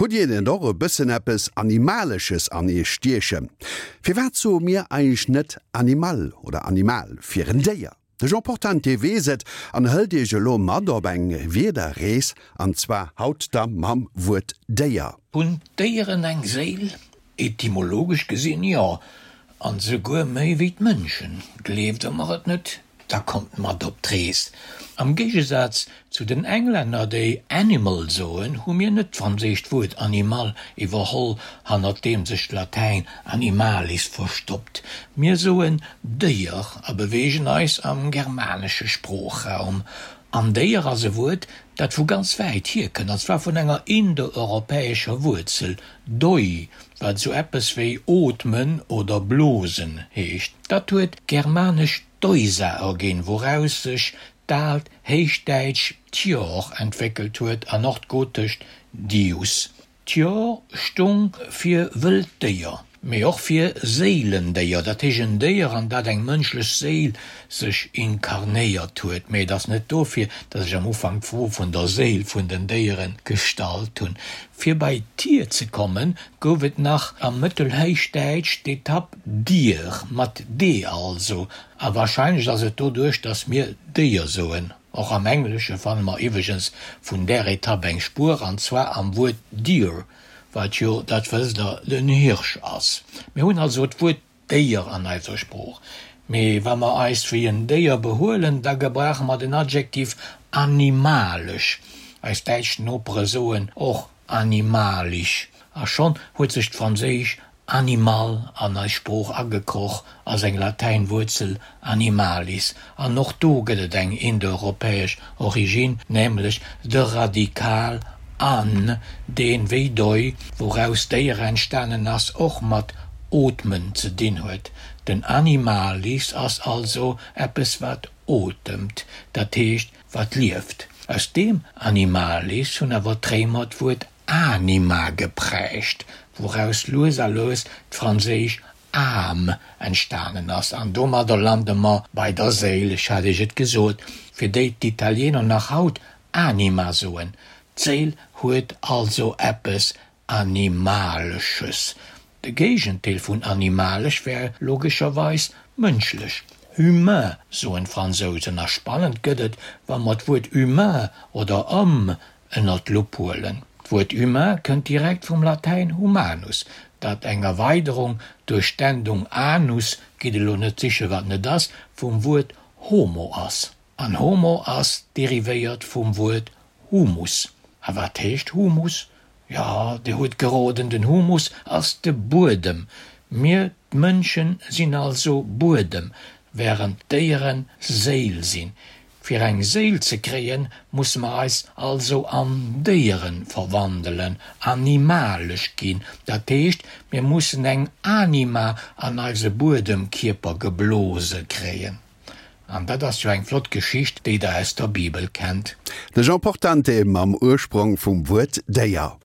Hutt Dir net och e bëssen eppes Animalesches an Iech stiechen? Firwat soe mir eigentlech net Animal oder Animal fir en Déier? De Jean Portante weess et an hëlt Iech elo mat op eng Wierderrees, an zwar haut da mam Wuert Déier. Hunn d'Déieren eng Séil? Etymologesch gesinn, jo, an souguer méi wéi d'Mënschen. Gleeft Der mer et net? Da kommt mat op d'Rees. Am Géigesaz zu den Englänner, déi animal soen, hu mir net d'franséischt Wuert animal iwwerholl, hannert deem sech d'Latäin animalis verstoppt. Mir soen Déier a beweegen eis am germanesche Sproochraum. An Déier ass e Wuert, dat vu ganz wäit hierkënnt, an zwar vun enger indoeuropäescher Wuerzel, doi, wat esou eppes wéi ootmen oder blosen heescht. Dat huet d'germanesch doisa erginn, wouraus sech d'aalt Héichdäitsch tior entwéckelt huet an och d'gotescht dius. D'Tior stung fir wëllt Déier, mee och fir Séilendéier, dat heescht en Déier, an dat eng mënschlech Séil sech inkarnéiert huet. Mee et ass net dofir, datt ech am Ufank d'Fro vun der Séil vun den Déiere gestallt hunn. Fir bei Tier ze kommen, gouf et nach am Mëttelhéichdäitsch d'Etapp Dier, mat d also, a warscheinlech ass et doduerch, datt mir Déier soen. Och am Englesche fanne mer iwweregens vun där Etapp eng Spuer, an zwar am Wuert deer, wat jo, dat wësst Der, den Hirsch ass. Mir hunn also d'Wuert Déier an eiser Sprooch, mee wa mer eis wéi en Déier behuelen, da gebrauche mer den Adjektiv animalesch. Eis däitsch Nopere soen och animalisch. A schonn huet sech d'franséisch animal an eis Sprooch agekroch a seng Latäinwuerzel animalis. An och do gëtt et eng indoeuropäesch Originn, nämlech de Radikal an, deen, wéi doi, wouraus Déier entstanen ass, och mat ootmen ze dinn huet. Den animalis ass also eppes wat otemt, dat heescht wat lieft. Aus deem animalis hunn awer d'Réimer d'Wuert anima geprägt, wouraus lues a lues d'franséisch âme entstanen ass. An domadder lande mer bei der Séil, ech hat Iech et gesot, fir déi d'Italiener nach haut anima soen. D'Séil huet also eppes Animalesches. De Géigendeel vun animalesch wär logescherweis mënschlech, humain soen d'Fransousen. A spannend gëtt et, wa mer d'Wuert humain oder homme ënner d'Lupp huelen. D'Wuert humain kënnt direkt vum Latäin humanus, dat eng Erweiderung duerch d'Endung anus, gitt elo net siche wat net ass, vum Wuert homo ass. An homo ass derivéiert vum Wuert Humus. A wat heescht Humus? Jo, Dir hutt geroden, den Humus ass de Buedem. Mir, d'Mënschen, sinn also Buedem, wärend d'Déiere Séil sinn. Fir eng Séil ze kréien, musse mer eis also an Déiere verwandelen, animalesch ginn. Dat heescht, mir mussen eng Anima an eise Buedemkierper geblose kréien. An dat ass jo eng flott Geschicht, déi der aus der Bibel kennt. De Jean Portante mam Ursprong vum Wuert Déier.